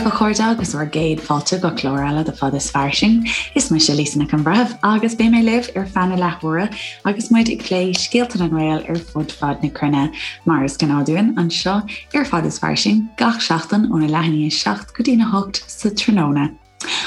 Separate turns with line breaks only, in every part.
libh, a chairde, agus bhur gcéad fáilte go clár eile de Fad is Fairsing. Is mise Lisa Nic an Bhreithimh agus beidh mé libh ar feadh na leathuaire agus muid ag plé scéalta na nGael ar fud fad na cruinne, mar is gnáth dúinn anseo ar Fad is Fairsing gach seachtain óna leath i ndiaidh 7 go dtína 8 sa tráthnóna.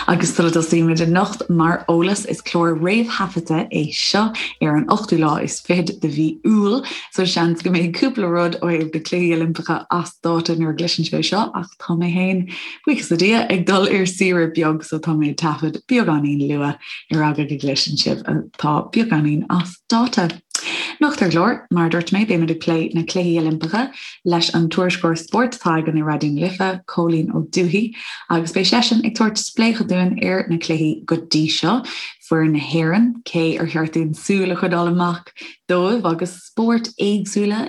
Agus sula dtosaímid anocht, mar eolas, is clár réamhthaifeadta é seo ar an ochtú lá is fichead de mhí Iúil, so seans go mbeidh cúpla rud ó thaobh na Cluichí Oilimpeacha as dáta nuair a gcloiseann sibh é seo, ach tá mé féin, buíochas le Dia, ag dul ar saoire beag so tá mé ag taifead beagáinín luath ar eagla go gcloiseann sibh atá beagáinín as dáta. Anocht ar an gclár, mar a dúirt mé, beimid ag plé na Cluichí Oilimpeacha leis an tuairisceoir spóirt atá againn i Raidió na Life, Cóilín Ó Dubhthaigh, agus beidh seisean ag tabhairt spléachadh dúinn ar na cluichí go dtí seo, foireann na hÉireann, cé ar cheart dúinn súil a choinneáil amach dóibh agus spóirt éagsúla,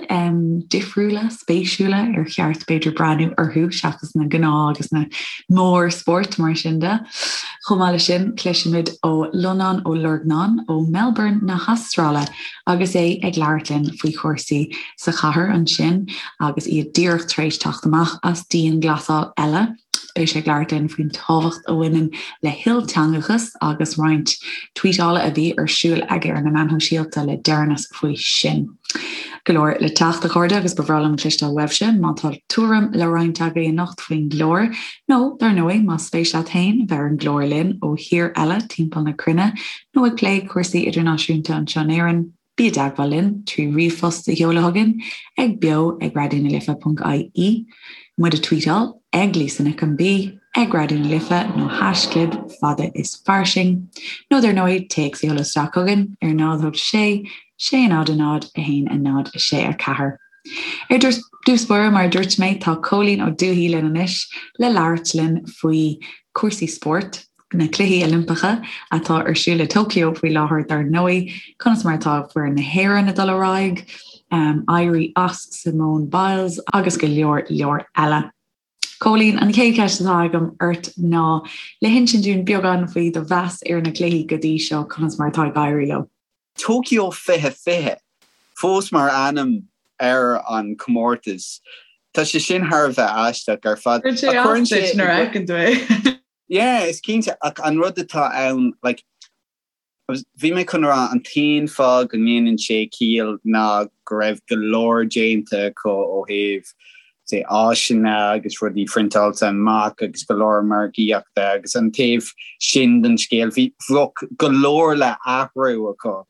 difriúla, spéisiúla ar cheart b'fhéidir breathnú orthu seachas na gnáth agus na mórspóirt mar sin de. Chomh maith leis sin, cloisfimid ó Lonán Ó Lorgnáin ó Melbourne na hAstráile agus é ag labhairt linn faoi chúrsaí sa chathair ansin agus iad díreach tar éis teacht amach as dianghlasáil eile. Beidh sé ag labhairt linn faoin tábhacht a bhaineann le hilteangachas agus roinnt tweetála a bhí ar siúl aige ar na meáin shóisialta le deireanas faoi sin. Go leor le teacht, a chairde, agus ba bhreá liom cloisteáil uaibhse má tá tuairim le roinnt agaibh anocht faoin gclár, nó, dar ndóigh, más spéis leat féin bheith ar an gclár linn ó thír eile timpeall na cruinne nó ag plé cúrsaí idirnáisiúnta anseo in Éirinn. Bí i dteagmháil linn trí ríomhphost a sheoladh chugainn ag beo ag raidionalife.ie, muid a tweetáil ag Lisa Nic an B, ag Raidió na Life nó haischlib fada is fairsing, nó dar ndóigh téacs a sheoladh isteach chugainn ar 0 8 6 6 0 0 1 0 6 4. Ar dtús báire, mar a dúirt mé, tá Cóilín Ó Dubhthaigh linn anois le labhairt linn faoi chúrsaí spóirt, na Cluichí Oilimpeacha atá ar siúl i Tokyo faoi láthair dar ndóigh, conas mar atá foireann na hÉireann ag dul ar aghaidh, éirí as Simone Biles agus go leor leor eile. Cóilín, an chéad cheist atá agam ort ná le hinsint dúinn beagán faoi do mheas ar na cluichí go dtí seo, conas mar atá ag éirí leo?
Tokyo 2020 fós mar ainm ar an comórtas. Tá sé sin thar a bheith aisteach ar fad.
Cuireann sé as duit nuair a fheiceann tú é.
Yeah, is cinnte, ach an rud atá ann, like, bhí mé chun a rá an t-aon fáth go ndéanann sé ciall ná go raibh go leor déanta acu ó thaobh, say, áiseanna agus rudaí priontáilte amach agus go leor margaíochta agus an taobh sin den scéal, bhí, bheadh go leor le athrú acu.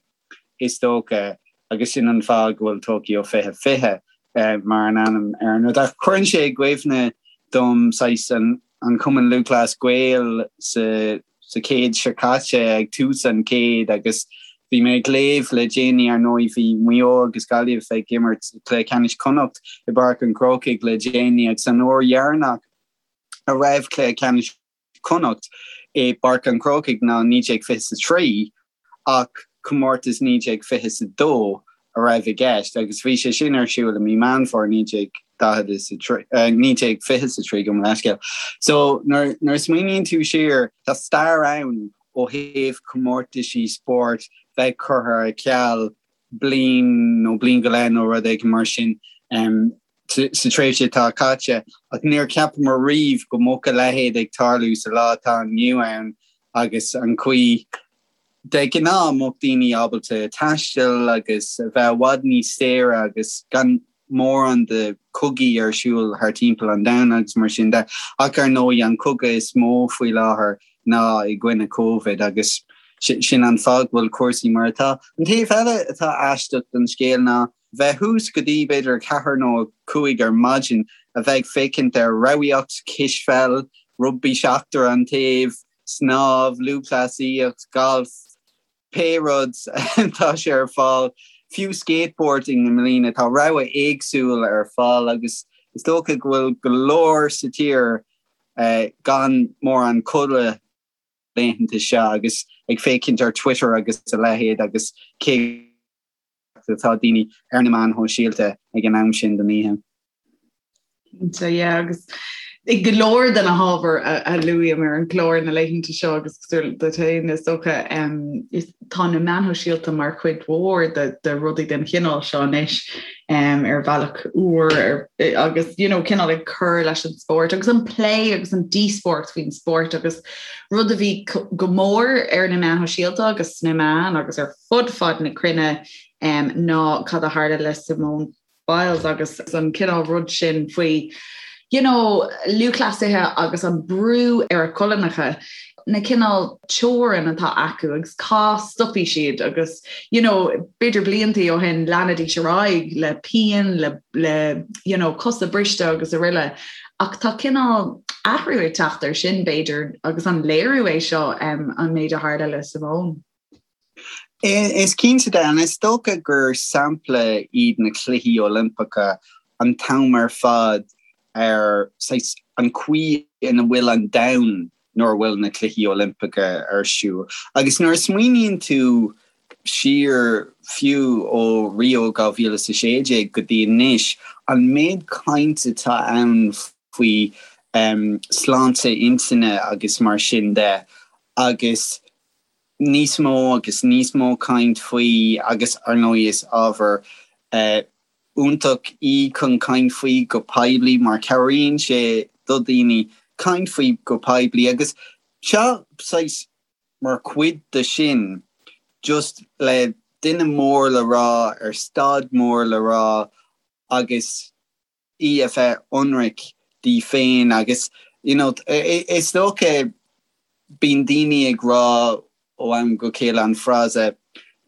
is dócha, agus sin an fáth go bhfuil Tokyo 2020 mar an ainm ar an rud. Ach cuireann sé i gcuimhne dom saghas an an Cumann Lúthchleas Gael sa sa chéad seo caite, ag tús an chéid, agus bhí mé ag léamh le déanaí, ar ndóigh, bhí Maigh Eo agus Gaillimh ag imirt Cluiche Ceannais Chonnacht i bPáirc an Chrócaigh le déanaí agus an uair dheireanach a raibh Cluiche Ceannais Chonnacht i bPáirc an Chrócaigh ná 1923 ach comórtas 1922 a raibh i gceist agus bhí sé sin ar siúl i mí Meán Fómhair 1943, 1923 gabh mo leithscéal. So nuair a smaoiníonn tú siar tá stair ann ó thaobh comórtaisí spóirt bheith curtha ar ceal bliain nó bliain go leith nó rud éigin mar sin. sa tréimhse atá caite, ach níor cheapamar riamh go mbeadh a leithéid ag tarlú sa lá atá inniu ann agus an chaoi de ghnáth a mbeadh daoine ábalta taisteal agus a bheith i bhfad níos saoire agus gan mórán de chogaí ar siúl thar timpeall an domhain agus mar sin de. Ach ar ndóigh an cogadh is mó faoi láthair ná i gcoinne Covid agus sin an fáth go bhfuil cúrsaí mar atá. An taobh eile atá aisteach den scéal ná bheith thuas go dtí b'fhéidir 4 nó 5 ar maidin, a bheith ag féachaint ar ramhaíocht, cispheil, rugbaí seachtar an taobh, snámh, lúthchleasaíocht, galf, pé rud tá sé ar fáil, fiú skateboarding i mbliana, tá rogha éagsúil ar fáil agus is dócha go bhfuil go leor sa tír gan mórán codladh laethanta seo agus ag féachaint ar Twitter agus a leithéid agus cé atá daoine ar na meáin shóisialta ag an am sin den oíche.
Cinnte, yeah, agus. I go leor de na hábhair a luaim ar an gclár na laethanta seo agus cosúil duit féin is dócha, tá na meáin shóisialta mar chuid mhór de rudaí den chineál seo anois ar bhealach úr agus you know cineál ag cur leis an spórt agus an plé agus an díospóireacht faoin spórt agus rud a bhí go mór ar na meáin shóisialta agus sna meáin agus ar fud fad na cruinne ná cad a tharla le Simone Biles agus an cineál rud sin faoi you know lúthchleasaithe agus an brú ar a colainneacha, na cineál teorann atá acu agus cá stopfaidh siad agus you know b'fhéidir bliantaí ó shin leanfaidís ar aghaidh le pian le le you know cosa briste agus araile ach tá cineál athrú ag teacht ar sin b'fhéidir agus an léiriú é seo um, an méid a tharla le Simone.
Is cinnte de, and is dócha gur sampla iad na Cluichí Oilimpeacha an t-am ar fad ar saghas an chaoi ina bhfuil an domhan nuair a bhfuil na Cluichí Oilimpeacha ar siúl. Agus nuair a smaoiníonn tú siar fiú ó Rio 2016 go dtí anois, an méid cainte atá ann faoi sláinte intinne agus mar sin de agus níos mó agus níos mó caint faoi agus ar ndóigh is ábhar iontach í chun caint faoi go poiblí mar cabhraíonn sé do dhaoine caint faoi go poiblí agus seo saghas mar chuid de sin just le duine mór le rá ar staid mór le rá agus í a bheith ionraic di féin agus you know is dócha bíonn daoine ag rá ó am go chéile an frása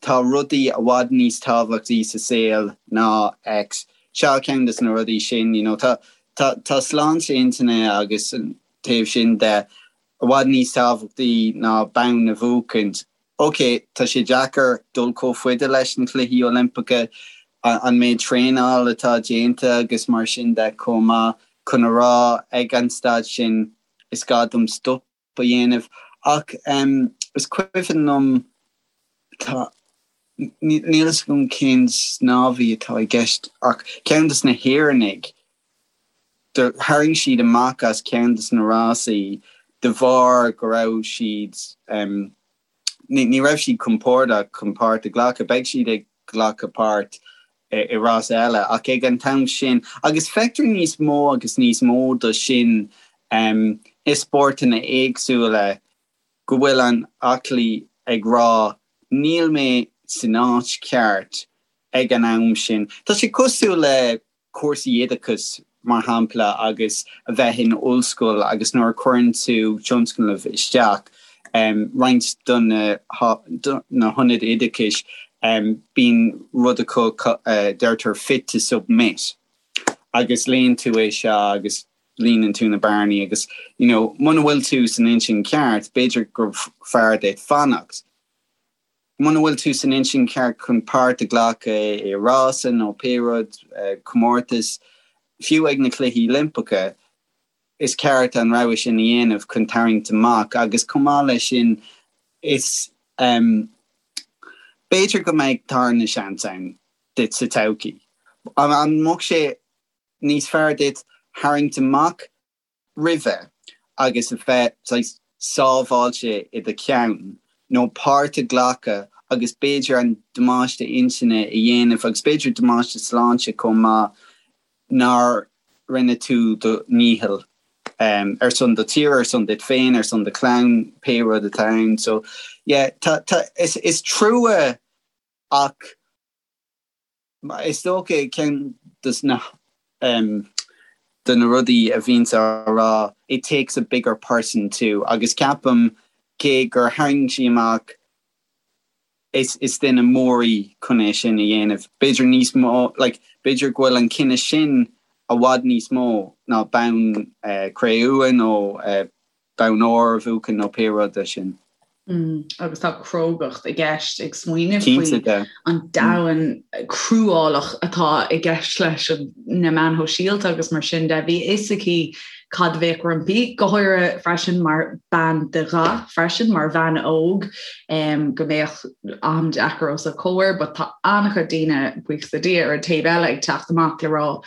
tá rudaí i bhfad níos tábhachtaí sa saol ná X. Seo ceann de na rudaí sin you know tá tá tá sláinte intinne agus an taobh sin de i bhfad níos tábhachtaí ná bonn a bhuachaint. Ok, tá sé deacair dul chomh faide leis na Cluichí Oilimpeacha, an méid traenáil atá déanta agus mar sin de chomh maith, chun a rá ag an staid sin is gá dom stop a dhéanamh. Ach is cuimhin liom, tá, níl fhios agam cén snámhaí atá i gceist ach ceann de na hÉireannaigh, do tharraing siad amach as ceann de na rásaí de bharr go raibh siad, ní raibh siad compordach chun páirt a ghlacadh. Beidh siad ag glacadh páirt i rás eile ach ag an t-am sin, agus feictear níos mó agus níos mó de sin i spórtanna éagsúla, go bhfuil an aclaí ag rá níl mé san áit cheart ag an am sin. Tá sé cosúil le cúrsaí oideachais, mar shampla, agus a bheith in ollscoil agus nuair a chuireann tú tionscnamh isteach, roinnt de na hionaid oideachais, bíonn rud acu a deirtear 'fit to submit' agus léann tú é seo agus líonann tú na bearnaí agus you know muna bhfuil tú san intinn ceart, b'fhéidir gur fearr duit fanacht. Muna bhfuil tú san intinn cheart chun páirt a ghlacadh i rása nó pé rud, comórtas, fiú ag na Cluichí Oilimpeacha, is ceart an rogha sin a dhéanamh chun tarraingt amach agus chomh maith leis sin is b'fhéidir go mbeidh tarna seans ann duit sa todhchaí. An mbeadh sé níos fearr duit tharraingt amach roimhe agus a bheith saghas sábháilte i do cheann nó páirt a ghlacadh agus b'fhéidir an damáiste intinne a dhéanamh agus b'fhéidir damáiste sláinte chomh maith nár rinne tú do ndícheall ar son do tíre, ar son duit féin, ar son do chlann, pé rud atá ann. So yeah, tá, tá, is, is trua ach Is dócha ceann de na de na rudaí a bhíonns á rá it takes a bigger person to agus ceapaim cé gur tharraing sí amach is is duine mór í chun é sin a dhéanamh. B'fhéidir níos mó like b'fhéidir go bhfuil an cinneadh sin i bhfad níos mó ná bonn cré-umha nó bonn óir a bhuachan nó pé rud é sin.
Agus tá crógacht i gceist ag smaoineamh faoi an domhan cruálach atá i gceist leis na meáin shóisialta agus mar sin de. Bhí a fhios aici cad a bheadh roimpi, go háirithe freisin mar bean de dhath freisin, mar bhean óg, go mbeadh am deacair os a comhair. But tá an-chuid daoine, buíochas le Dia, ar an taobh eile ag teacht amach le rá.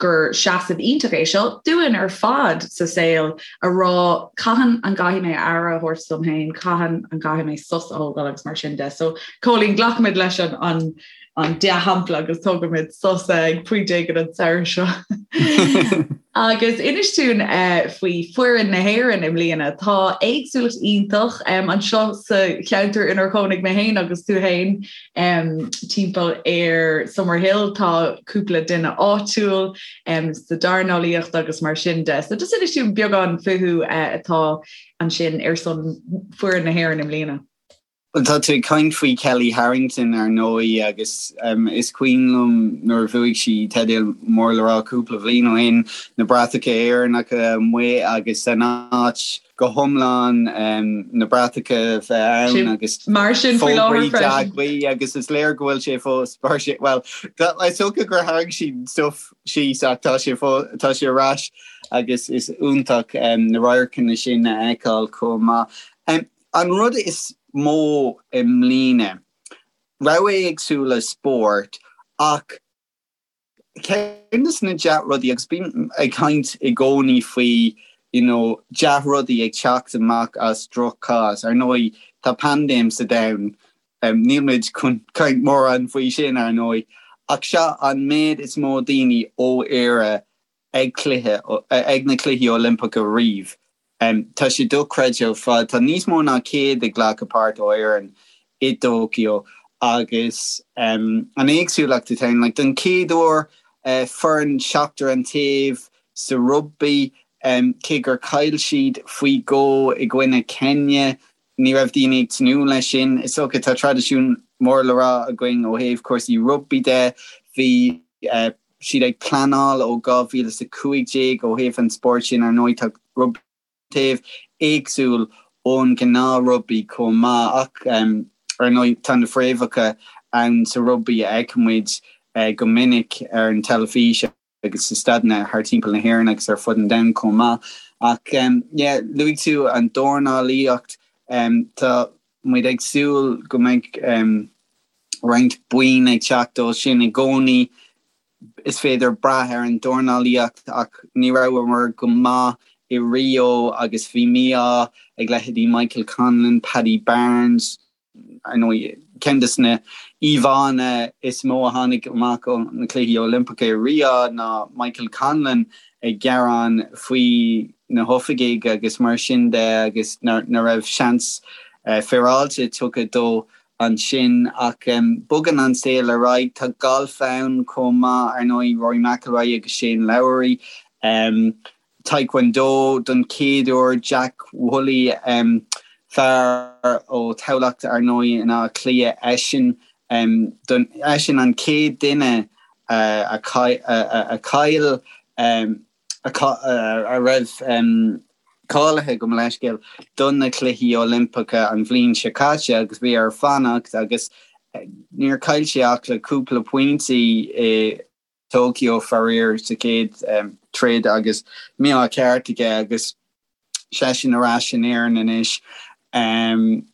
gur seasamh iontach é seo dúinn ar fad sa saol a rá cathain an gcaithfidh mé aire a thabhairt dom féin, cathain an gcaithfidh mé sos a thógáil agus mar sin de. So Cóilín, glacfaimid leis an an an dea-shampla agus tógfaimid sos ag pointe éigin an samhradh seo. Agus inis dúinn faoi foireann na hÉireann i mbliana. Tá éagsúlacht iontach anseo sa cheantar inar chónaigh mé féin agus tú féin timpeall ar Summerhill. Tá cúpla duine áitiúil sa dornálaíocht agus mar sin de. So just inis dúinn beagán fúthu atá ansin ar son foireann na hÉireann i mbliana.
Bhuel, tá tú ag caint faoi Kellie Harrington, ar ndóigh, agus is cuimhin liom nuair a bhuaigh sí teideal mór le rá cúpla bhliain ó shin, na bratacha Éireannacha amuigh agus an áit go hiomlán na bratacha a bheith ann agus
mar sin faoi láthair freisin.
Dea-ghuí agus is léir go bhfuil sé fós mar sin, bhuel, is dócha gur tharraing sí stuif síos ach tá sé tá sé ar ais agus is iontach na radharcanna sin a fheiceáil chomh maith. An rud is mó i mbliana, rogha éagsúla spóirt ach ceann de na dea-rudaí, agus bím ag caint i gcónaí faoi you know dea-rudaí ag teacht amach as droch-chás, ar ndóigh tá paindéim sa domhan, níl muid chun caint mórán faoi sin ar ndóigh, ach seo an méid is mó daoine ó Éire ag cluiche, ag na Cluichí Oilimpeacha riamh. Tá sé dochreidte ar fad. Tá níos mó ná 100 ag glacadh páirt ó Éirinn i dTóiceo agus an éagsúlacht atá ann, like, don chéad uair foireann seachtar an taobh sa rugbaí, cé gur chaill siad faoi dhó i gcoinne Kenya, ní raibh daoine ag tnúth leis sin. Is dócha tá traidisiún mór le rá againn ó thaobh cúrsaí rugbaí de. Bhí siad ag pleanáil ó 2015 ó thaobh an spóirt sin, ar ndóigh tá rugbaí taobh éagsúil ón ghnáth-rugbaí chomh maith ach ar ndóigh tá na fréamhacha ann sa rugbaí a fheicimid go minic ar an teilifís. agus i staideanna thar timpeall na hÉireann agus ar fud an domhain chomh maith. Ach yeah, luaigh tú an dornálaíocht, tá muid ag súil go mbeidh roinnt boinn ag teacht ó sin i gcónaí. Is féidir brath ar an dornálaíocht ach ní rabhamar go maith i Rio agus bhí mí-ádh ag leithéidí Michael Conlan, Paddy Barnes, Ar ndóigh, ceann de na íomhánna is mó a tháinig amach ó na Cluichí Oilimpeacha i Rio ná Michael Conlan ag gearán faoi na hoifigigh agus mar sin de agus nach raibh seans féaráilte tugtha dó ansin. Ach bogann an saol ar aghaidh. Tá galf ann chomh maith, ar ndóigh, Rory McIlroy agus Shane Lowry. Taekwondo don chéad uair, Jack Woolley, fear ó Thamhlacht ar ndóigh in Áth Cliath, eisean eisean an chéad duine a chaill a raibh cáilithe gabh mo leithscéal do na Cluichí Oilimpeacha an bhliain seo caite agus bhí air fanacht agus níor chaill sé ach le cúpla pointí i Tokyo faraor sa chéad troid agus mí-ádh ceart aige agus seisean ar ais in Éirinn anois.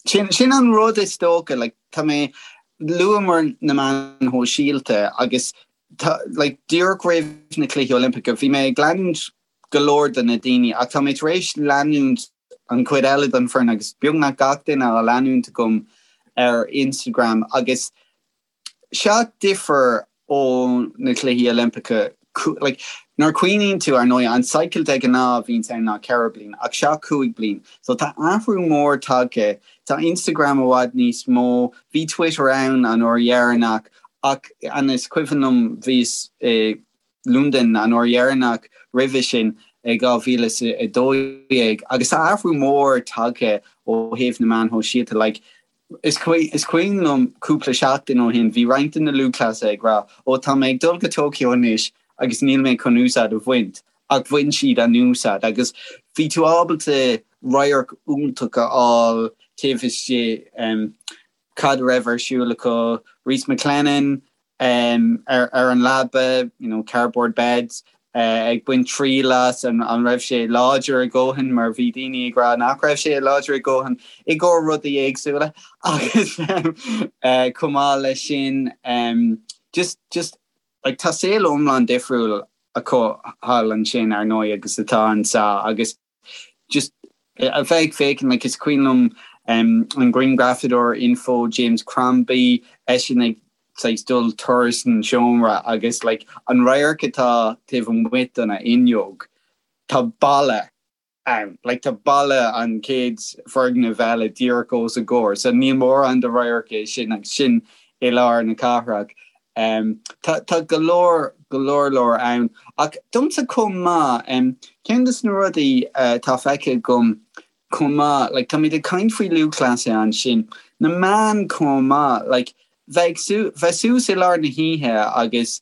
Sin sin an rud is dócha like tá mé luamar na meáin shóisialta agus tá like díreach roimh na Cluichí Oilimpeacha bhí mé ag leanúint go leor de na daoine ach tá mé tar éis leanúint an chuid eile den foireann agus beagnach gach duine á leanúint agam ar Instagram agus Seo difear ó na Cluichí Oilimpeacha. Like, nuair a chuimhníonn tú, ar ndóigh, an cycle de ghnáth a bhíonns ann ná 4 bliain, ach seo 5 bliain. So tá athrú mór tagtha. Tá Instagram i bhfad níos mó. Bhí Twitter ann an uair dheireanach, ach an is cuimhin liom bhíos i Londain an uair dheireanach roimhe sin i 2012 agus tá athrú mór tagtha ó thaobh na meáin shóisialta. Like, Is cuimhin liom cúpla seachtain ó shin, bhí roinnt de na lúthchleasaithe ag rá, 'Ó, tá mé ag dul go Tokyo anois agus níl mé chun úsáid a bhaint', ach bhain siad an úsáid agus bhí tú ábalta radharc iontach a fháil taobh istigh cad a raibh ar siúl acu. Rhys McClenaghan, ar an leaba, you know, cardboard beds, ag baint triail as, an raibh sé láidir a dhóthain mar bhí daoine ag rá nach raibh sé láidir a dhóthain i gcomhair rudaí éagsúla agus chomh maith leis sin just, just, like tá saol iomlán difriúil. acu thall ansin ar ndóigh agus atá anseo agus just a bheith ag féachaint like is cuimhin liom an grianghrafadóir Inpho James Crombie eisean ag saghas dul turas an seomra agus like an radharc atá taobh amuigh den fhuinneog tá balla ann. Like tá balla an chéad foirgneamh eile díreach os a gcomhair so níl mórán de radharc é sin agus sin i lár na cathrach. Um, tá, tá go leor, go leor leor ann. Ach domsa chomh maith, um, ceann de na rudaí uh, atá feicthe agam chomh maith, like, táimid ag caint faoi lúthchleasaithe ansin, na meáin chomh maith, like, bheith bheith suas i lár na hoíche agus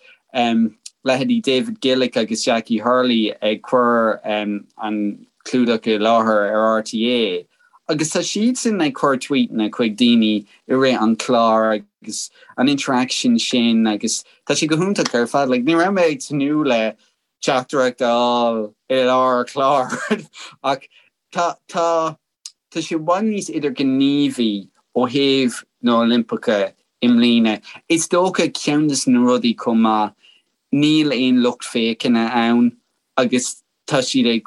leithéidí David Gillick agus Jackie Hurley ag cur an clúdach i láthair ar RTÉ agus tá siadsan ag cur tweetanna chuig daoine i rith an chláir agus an interaction sin agus tá sé go hiontach ar fad. Like, ní raibh mé ag tnúth le teachtaireacht a fháil i lár clár ach tá tá Tá sé i bhfad níos idirghníomhaí ó thaobh na Oilimpeacha i mbliana. Is dócha ceann de na rudaí chomh maith, níl aon lucht féachana ann agus tá siad ag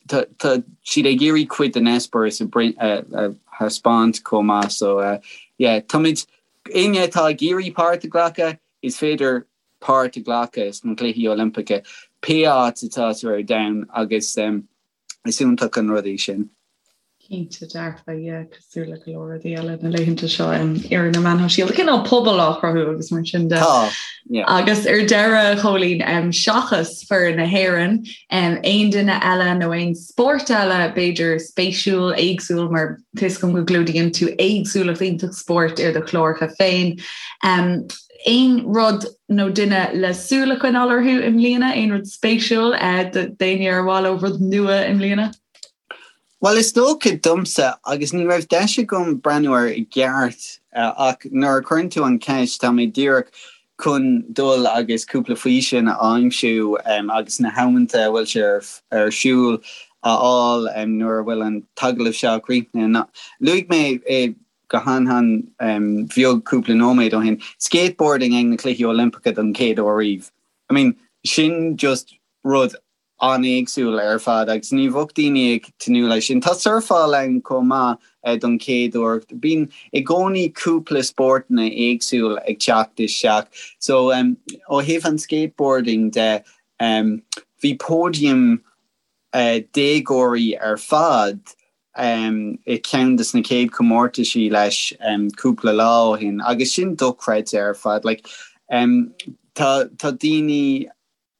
tá siad ag iarraidh cuid den eispéireas a thaispeáint chomh maith. So yeah, táimid, éinne atá ag iarraidh páirt a ghlacadh, is féidir páirt a ghlacadh sna Cluichí Oilimpeacha pé áit atá tú ar domhan agus Is iontach an rud é sin.
Cinnte dearfa, yeah, cosúil le go leor rudaí eile na laethanta seo ar na meáin shóisialta. Cineál pobal á chruthú agus mar sin de.
Tá, yeah.
Agus ar deireadh, Chóilín, seachas foireann na hÉireann, aon duine eile nó aon spórt eile b'fhéidir spéisiúil, éagsúil mar tá a fhios agam go gclúdaíonn tú éagsúlacht iontach spóirt ar do chláracha féin. Aon rud nó duine le súil a choinneáil orthu i mbliana? Aon rud spéisiúil d'éinne ar mhaith leo rud nua i mbliana?
Bhuel, is dócha domsa, agus ní raibh deis agam breathnú air i gceart, ach nuair a chuireann tú an cheist, tá mé díreach chun dul agus cúpla físeán a aimsiú agus na hamanta a bhfuil sé ar siúl a fháil nuair a bhfuil an t-agallamh seo críochnaithe. Luaigh mé i go han-han bheag cúpla nóiméad ó shin, skateboarding ag na Cluichí Oilimpeacha don chéad uair riamh. I mean, sin just rud an-éagsúil ar fad agus ní bheadh daoine ag tnúth leis sin. Tá surfáil ann chomh maith don chéad uair. Bíonn i gcónaí cúpla spórtanna éagsúil ag teacht isteach. So, ó thaobh an skateboarding de, bhí podium déagóirí ar fad i ceann de na chéad chomórtaisí leis cúpla lá ó shin agus sin dochreidte ar fad. Like, tá tá daoine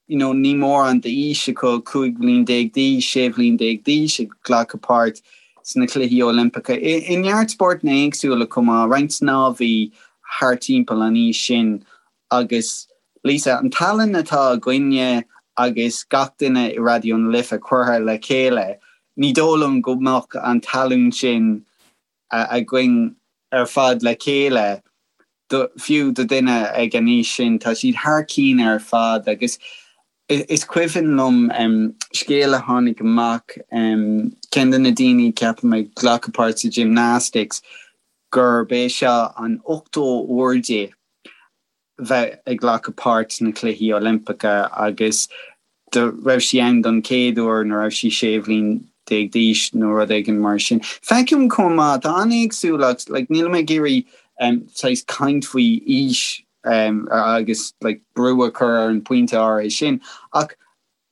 you know, ní mórán d'aois acu, 15 bhliain d'aois, 16 bhliain d'aois ag glacadh páirt sna Cluichí Oilimpeacha. I neart spórtanna éagsúla chomh maith, roinnt snámhaí thart timpeall an aois sin Agus Lisa, an tallann atá againne agus gach duine i Raidió na Life curtha le chéile, ní dóigh liom go mbeadh an tallann sin againn ar fad le chéile, fiú do dhuine ag an aois sin. Tá siad thar cinn ar fad agus is cuimhin liom scéal a tháinig amach, ceann de na daoine, ceapaim, ag glacadh páirt sa gymnastics, gurb é seo an 80ú uair di bheith ag glacadh páirt sna Cluichí Oilimpeacha agus do raibh sí ann don chéad uair nuair a raibh sí 16 bhliain d'aois nó rud éigin mar sin. Feicim chomh maith, tá an-éagsúlacht, like nílim ag iarraidh saghas caint faoi aois agus like brú a chur ar an bpointe áirithe sin ach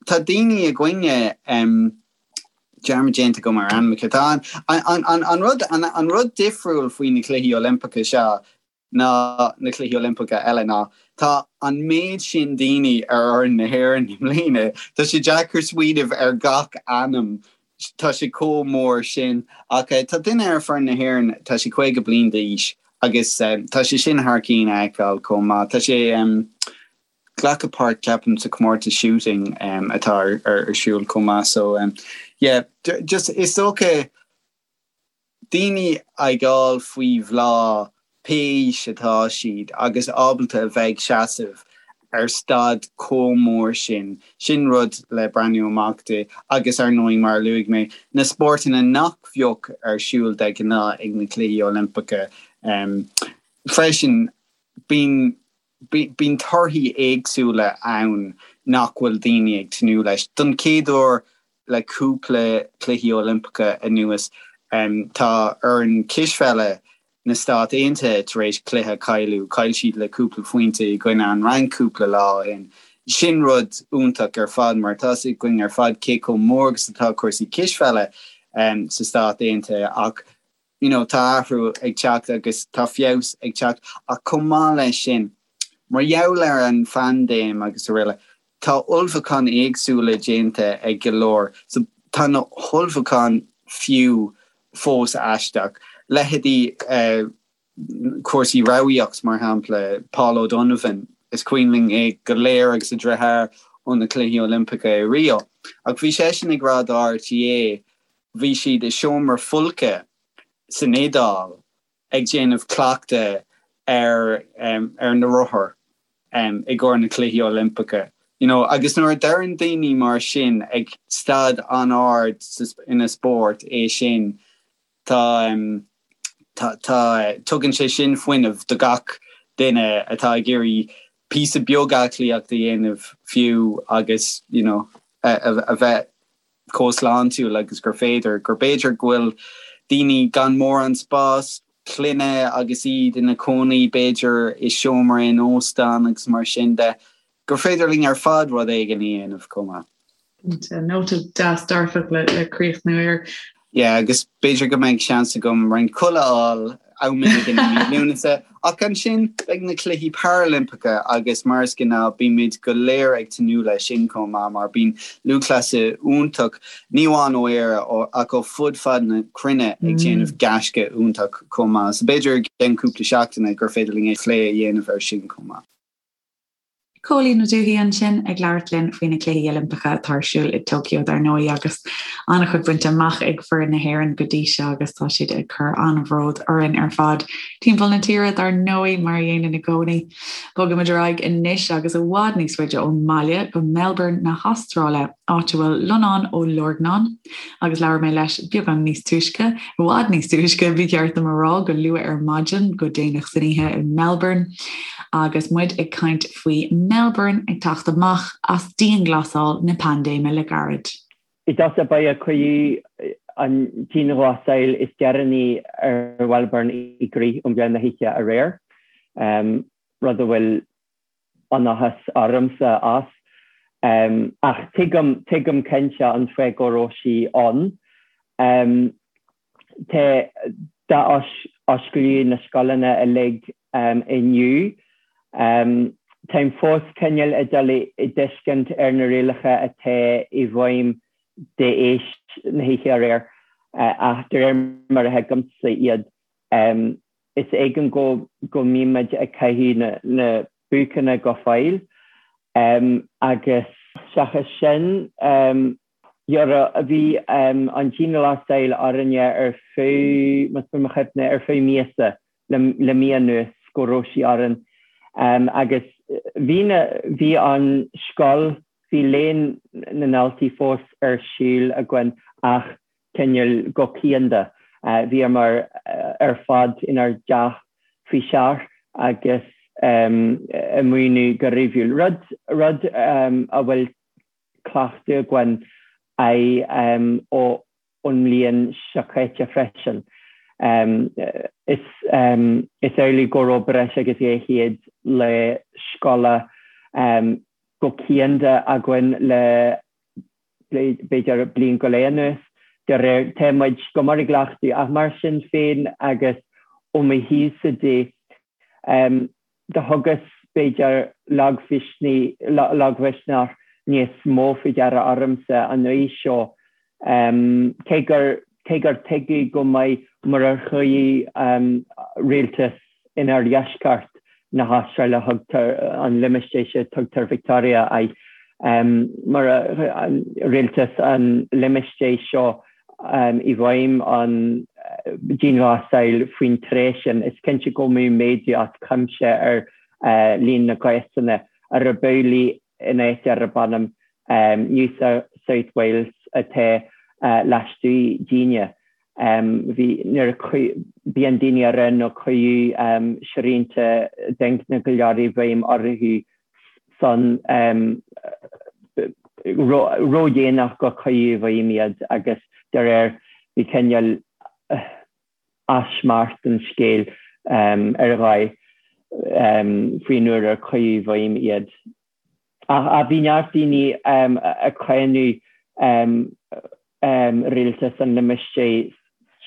tá daoine againne dearmad déanta agam ar ainmneacha. Tá an rud an rud difriúil faoi na Cluichí Oilimpeacha seo ná na Cluichí Oilimpeacha eile ná tá an méid sin daoine ar fhoireann na hÉireann i mbliana. Tá sé deacair smaoineamh ar gach ainm, tá sé chomh mór sin. Ach tá duine ar foireann na hÉireann, tá sé 50 bliain d'aois agus tá sé sin thar cinn a fheiceáil chomh maith. Tá sé glacadh páirt ceapaim sa chomórtas shooting atá ar siúl chomh maith. So yeah, just is dócha daoine ag fáil faoi bhláth pé aois atá siad agus ábalta a bheith ag seasamh ar staid chomh mór sin, sin rud le breathnú amach di agus ar ndóigh mar a luaigh mé, na spórtanna nach bheadh ar siúl de ghnáth ag na Cluichí Oilimpeacha freisin. Bíonn. Bíonn torthaí éagsúla ann nach bhfuil daoine ag tnúth leis. Don chéad uair le cúpla Cluichí Oilimpeacha anuas, tá foireann cispheile na Stát Aontaithe tar éis cluiche a chailleadh. Chaill siad le cúpla phointe i gcoinne an Fhrainc cúpla lá ó shin. Sin rud iontach ar fad mar tá 'fhios againn ar fad cé chomh mór agus atá cúrsaí cispheile sa Stát Aontaithe ach you know tá athrú ag teacht agus tá feabhas ag teacht ach chomh maith leis sin, mar gheall ar an phaindéim agus araile, tá ullmhúcháin éagsúla déanta ag go leor so tá na hullmhúcháin fiú fós aisteach. Leithéidí eh cúrsaí rámhaíocht mar shampla, Paul O'Donovan, is cuimhin linn é go léir agus a dheartháir ó na Cluichí Oilimpeacha i Rio ach bhí seisean ag rá do RTÉ Bhí siad i seomra folctha san Iodáil ag déanamh cleachtadh ar ar na rothair i gcomhair na Cluichí Oilimpeacha. You know, agus nuair a deireann daoine mar sin ag staid an-ard ina spórt é sin, tá tá tá tugann sé sin fuinneamh do gach duine atá ag iarraidh píosa beag aclaíocht a dhéanamh fiú agus you know a bheith chomh sláintiúil agus gur féidir, gur b'fhéidir go bhfuil daoine gan mórán spás clainne agus iad ina cónaí b'fhéidir i seomra in óstán agus mar sin de, gur féidir linn ar fad rud éigin a dhéanamh chomh maith.
Cinnte, nóta deas dearfach le críochnú air.
Yeah, agus b'fhéidir go mbeidh seans agam roinnt codladh a fháil am éigin i mí Lúnasa, ach ansin beidh na Cluichí Parailimpeacha agus mar is gnáth bímid go léir ag tnúth leis sin chomh maith mar bíonn lúthchleasaithe iontach, ní amháin ó Éire ach ó fud fad na cruinne ag déanamh gaisce iontach chomh maith. So b'fhéidir i gceann cúpla seachtaine gur féidir linn plé a dhéanamh air sin chomh maith.
Cóilín Ó Dubhthaigh ansin ag labhairt linn faoi na Cluichí Oilimpeacha atá ar siúl i Tokyo dar ndóigh agus an-chuid bainte amach ag foireann na hÉireann go dtí seo agus tá siad ag cur an-bhród orainn ar fad timpeall na tíre dar ndóigh mar a dhéanann i gcónaí. Bogaimid ar aghaidh anois agus i bhfad níos faide ón mbaile go Melbourne na hAstráile. áit a bhfuil Lonán Ó Lorgnáin, agus labhair mé leis beagán níos túisce, i bhfad níos túisce, ba cheart dom a rá, go luath ar maidin, go déanach san oíche i Melbourne, agus muid ag caint faoi Melbourne ag teacht amach as dianghlasáil na paindéime le gairid.
I dtosach ba cuireadh an dianghlasáil is deireanaí ar Mhelbourne i gcrích um mheán na hoíche aréir, rud a bhfuil an-áthas ormsa as. Ach tuigim, tuigim cinnte an fáth go raibh sí ann. Tá, d'athosclaíodh na scoileanna uilig inniu. Táim fós cineál ag dul i dtuiscint ar na rialacha atá i bhfeidhm d'éis na hoíche aréir, ach de réir mar a thuigimse iad, Is éigean go go mbímid ag caitheamh na buaiceanna go fóill agus seachas sin bhí an dianghlasáil orainne ar feadh, más buan mo chuimhne, ar feadh míosa le mí anuas go raibh sí orainn agus bhí na, bhí an scoil, bhí léann na ndaltaí fós ar siúl againn ach cineál go cianda. Bhíomar ar fad inár dteach faoi seach agus ag múineadh go ríomhúil, rud rud a bhfuil cleachtadh againn air ón mbliain seo caite freisin. Is is amhlaidh go raibh breis agus 200 lá scoile go cianda againn le b'fhéidir bliain go leith anuas, de réir, tá muid go mór i gcleachtadh, ach mar sin féin agus ó mo thaobhsa de, do thugas, b'fhéidir, lagmhisneach níos mó faoi deara ormsa an uair seo, cé gur, cé gur tuigeadh go maith murar chuaigh rialtas in oirdheisceart na hAstráile, thugtar an limistéar seo, tugtar Victoria air, mura rialtas an limistéir seo i bhfeidhm an dianghlasáil faoin tráth sin, is cinnte go mbeadh méadú as cuimse ar líon na gcásanna, arb amhlaidh in áit arb ainm New South Wales atá lastuaidh dínne. Bhí nuair a bíonn daoine a raibh nó cuireadh srianta d'ingne go leor i bhfeidhm orthu san ródhéanach go cuireadh i bhfeidhm iad agus de réir bhí cineál easmairt an scéil ar dhóigh faoin uair ar cuireadh i bhfeidhm iad. Ach bhí neart daoine ag cáineadh rialtas an limistéir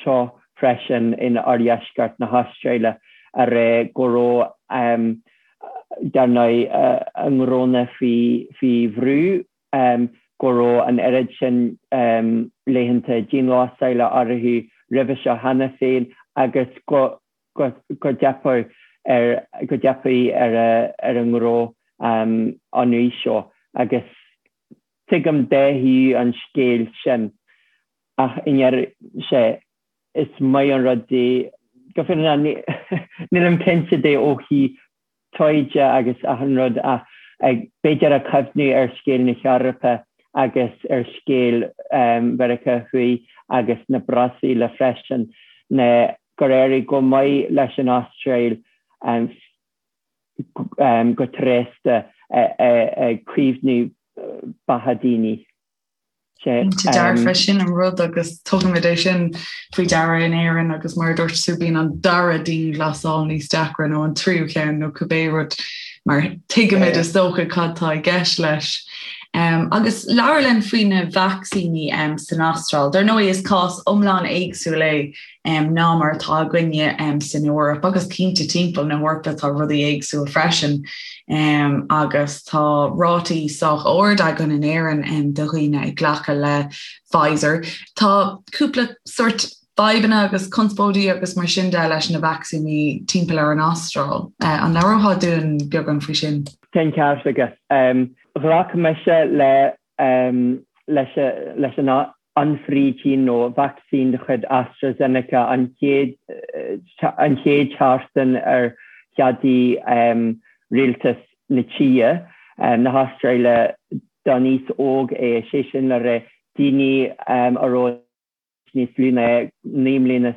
seo freisin in oirdheisceart na hAstráile a rá go raibh dar ndóigh a ngnónna faoi bhrú, go raibh an oiread sin laethanta dianghlasála orthu roimhe seo cheana féin agus go go dteipfeadh ar go dteipfeadh ar ar a ngnó an uair seo agus tuigim dá thaobh an scéil sin ach i ndeireadh sé is maith an rud é go fírinneach nílim cinnte de ó thaobh taighde agus achan rud ach b'fhéidir ag cuimhniú ar scéal na hEorpa agus ar scéal Mheiriceá Thuaidh agus na Brasaíle freisin ná gur éirigh go maith leis an Astráil go tréasta ag caomhnú beatha daoine.
Cinnte dearfa, sin an rud agus tugaimid é sin faoi deara in Éirinn agus mar a dúirt tú bíonn an dara dianghlasáil níos deacra nó an tríú ceann nó cibé rud mar tuigimid is dócha cad tá i gceist leis. Um, agus labhair linn faoi na vacsaíní um, san Astráil. Dar ndóigh is cás iomlán éagsúil é um, ná mar atá againne um, san Eoraip agus cinnte timpeall na hEorpa tá rudaí éagsúil freisin um, agus tá rátaí sách ard againn in Éirinn um, de dhaoine ag glacadh le Pfizer. Tá cúpla sort fadhbanna agus conspóidí agus mar sin de leis na vacsaíní timpeall ar an Astráil. Uh, an labhrófá dúinn beagán faoi sin?
Tá an ceart agat. Um, ghlac mise le um, leis, leis an ionfhabhtaín nó vacsaín de chuid AstraZeneca an chéad an chéad tseachtain ar cheadaigh rialtas na tíre, na hAstráile, don aos óg é, sé sin le rá daoine a raibh níos lú ná 29 mbliana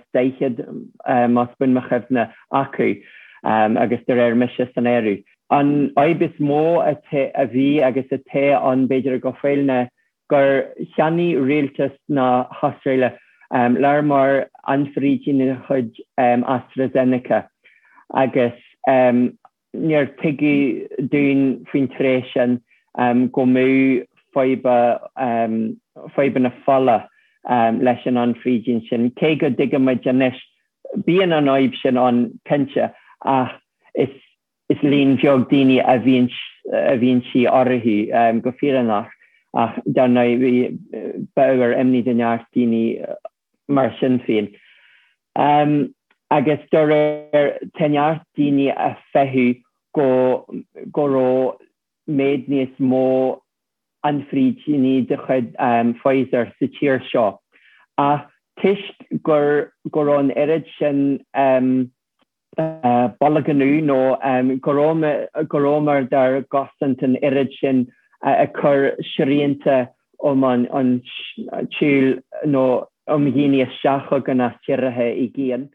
más buan mo chuimhne acu, agus de réir mise san áireamh. An fhadhb is mó a bhí agus atá ann b'fhéidir go fóill ná gur cheannaigh rialtas na hAstráile lear mór ionfhabhtaín de chuid AstraZeneca agus níor tuigeadh dúinn faoin tráth sin go mbeadh fadhbanna fola leis an ionfhabhtaín sin, cé go dtuigimid anois, bíonn an fhadhb sin ann cinnte ach is Is líon bheag daoine a bhíonn a bhíonn sí orthu, go fírinneach, ach dar ndóigh bhí b'ábhar imní do neart daoine mar sin féin. Agus dá réir tá neart daoine a feitheamh go go raibh méid níos mó ionfhabhtaíní de chuid Pfizer sa tír seo ach toisc gur go raibh an oiread sin bolgánú nó go rabhamar dár gcosaint an oiread sin ag cur srianta um an tsiúl nó um dhaoine isteach chugainn as tíortha i gcéin.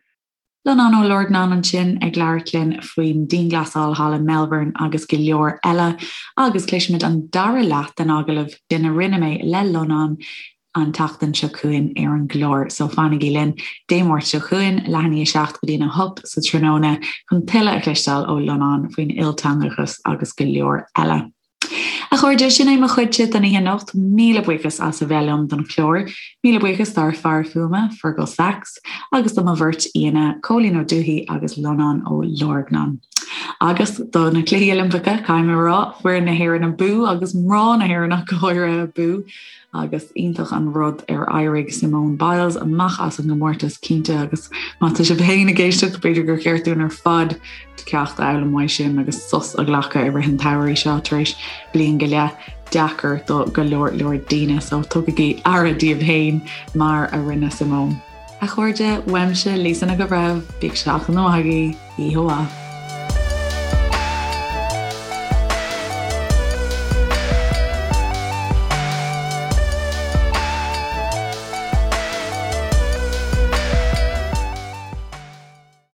Lonán Ó Lorgnáin ansin ag labhairt linn faoin dianghlasáil thall i Melbourne agus go leor eile agus cloisfimid an dara leath den agallamh sin a rinne mé le Lonán an tseachtain seo chugainn ar an gclár so fanaigí linn Dé Máirt seo chugainn, leath i ndiaidh a 7 go dtí'n 8 sa tráthnóna chun tuilleadh a chloisteáil ó Lonán faoin ilteangachas agus go leor eile. A chairde, sin é mo chuidse don oíche anocht. Míle buíochas as a bheith liom don chlár. Míle buíochas dár fear fuaime, Fergal Sachs, agus do mo bheirt aíonna, Cóilín Ó Dubhthaigh agus Lonán Ó Lorgnáin. Agus do na Cluichí Oilimpeacha, caithfidh mé a rá, foireann na hÉireann abú agus mná na hÉireann ach go háirithe abú. Agus iontach an rud ar éirigh Simone Biles amach as an gcomórtas cinnte agus má tá sibh féin ag éisteacht b'fhéidir gur cheart dúinn ar fad ceacht a fhoghlaim uaidh sin agus sos a ghlacadh i rith an tsamhraidh seo tar éis bliain go leith deacair do go leor leor daoine so tugaigí aire daoibh féin mar a rinne Simone. A chairde, uaimse Lisa Nic an Bhreithimh, bíodh seachtain mhaith agaibh, oíche mhaith.